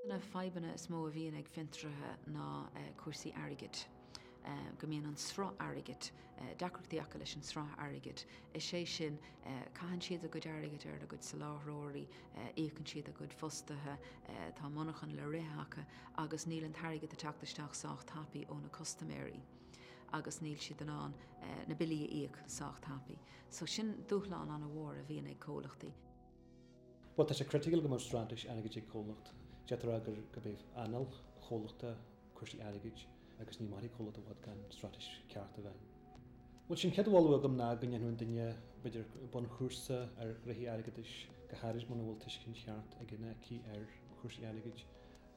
Na fadhbanna is mó a bhíonn ag fiontraithe ná cúrsaí airgid. Go mbíonn an sruth airgid, deacrachtaí acu leis an sruth airgid. Is é sin, caitheann siad a gcuid airgid ar a gcuid soláthróirí, íocann siad a gcuid fostaithe, tá monarchan le rith acu agus níl an t-airgead ag teacht isteach sách tapaidh ó na custaiméirí agus níl siad in ann na billí a íoc sách tapaidh. So sin dúshlán an-mhór a bhíonn ag comhlachtaí. Bhuel, tá sé criticiúil go mbeadh straitéis airgid ag comhlacht. D'fhéadfá a rá gur gurb é anáil chomhlachta cúrsaí airgid agus ní mairfidh comhlacht i bhfad gan straitéis ceart a bheith ann. Bhuel, sé an chéad mholadh agam ná go ndéanfadh an duine, b'fhéidir, bunchúrsa ar ghnoithí airgeadais, go háirid muna bhfuil tuiscint cheart aige nó aici ar chúrsaí airgid.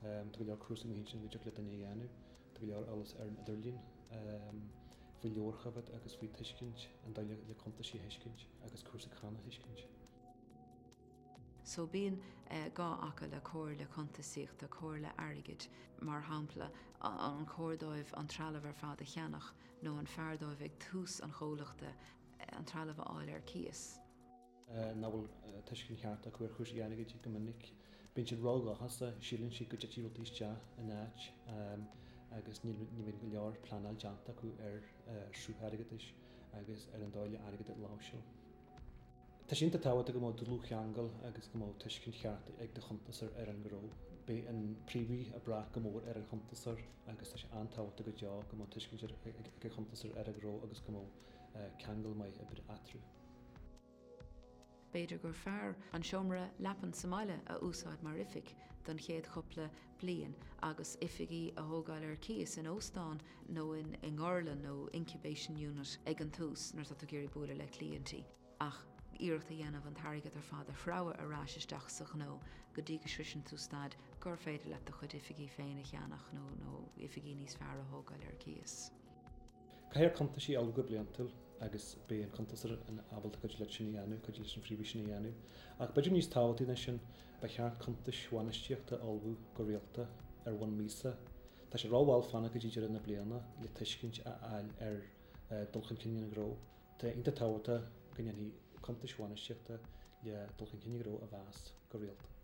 Tá go leor cúrsaí amuigh ansin go dtiocfadh le duine a dhéanamh. Tá go leor eolas ar an idirlíon faoi leabharchoimhéad agus faoi tuiscint an dóigh le cuntaisí a thuiscint agus cúrsaí cánach a thuiscint. So bíonn gá acu le comhairle cuntasaíochta, comhairle airgid, mar shampla, an cóir dóibh an trealamh ar fad a cheannach nó an fearr dóibh ag tús an chomhlachta an trealamh a fháil ar cíos. nach bhfuil tuiscint cheart acu ar chúrsaí airgid go minic. Bíonn siad ródhóchasach, síleann siad go dtitfidh rudaí isteach in áit agus ní bhíonn go leor pleanáil déanta acu ar shruth airgeadais agus ar an dóigh le airgead a láimhseáil. Tá sé iontach tábhachtach go mbeadh dlúthcheangal agus go mbeadh tuiscint cheart ag do chuntasóir ar an ngnó. Beidh an príomhaí ag brath go mór ar an chuntasóir agus tá sé an-tábhachtach go deo go mbeadh tuiscint ag an chuntasóir ar an ngnó agus go mbeadh ceangal maith oibre eatarthu. B'fhéidir gur fearr an seomra leapan sa mbaile a úsáid mar oifig don chéad chúpla bliain agus oifigí a thógáil ar cíos in óstán nó i ngorlann nó incubation unit ag an tús nuair atá tú ag iarraidh bualadh le cliaintí ach iarracht a dhéanamh an t-airgead ar fad a shreabhadh ar ais isteach sa ghnó go dtí go sroiseann tú staid gur féidir leat do chuid oifigí féin a cheannach nó oifigí níos fearr a thógáil ar cíos. Caithfear cuntaisí a ullmhú go bliantúil agus beidh an cuntasóir ábalta cuidiú leat sin a dhéanamh, cuidiú leis an phríomhaí sin a dhéanamh. Ach b'fhéidir níos tábhachtaí ná sin, ba cheart cuntais bhainistíochta a ullmhú go rialta ar bhonn míosa. Tá sé rómhall fanacht go dtí deireadh na bliana le tuiscint a fháil ar dul chun cinn an ghnó. Tá iontach tábhachtach go ndéanfaí cuntais bhainistíochta le dul chun cinn an ghnó a mheas go rialta.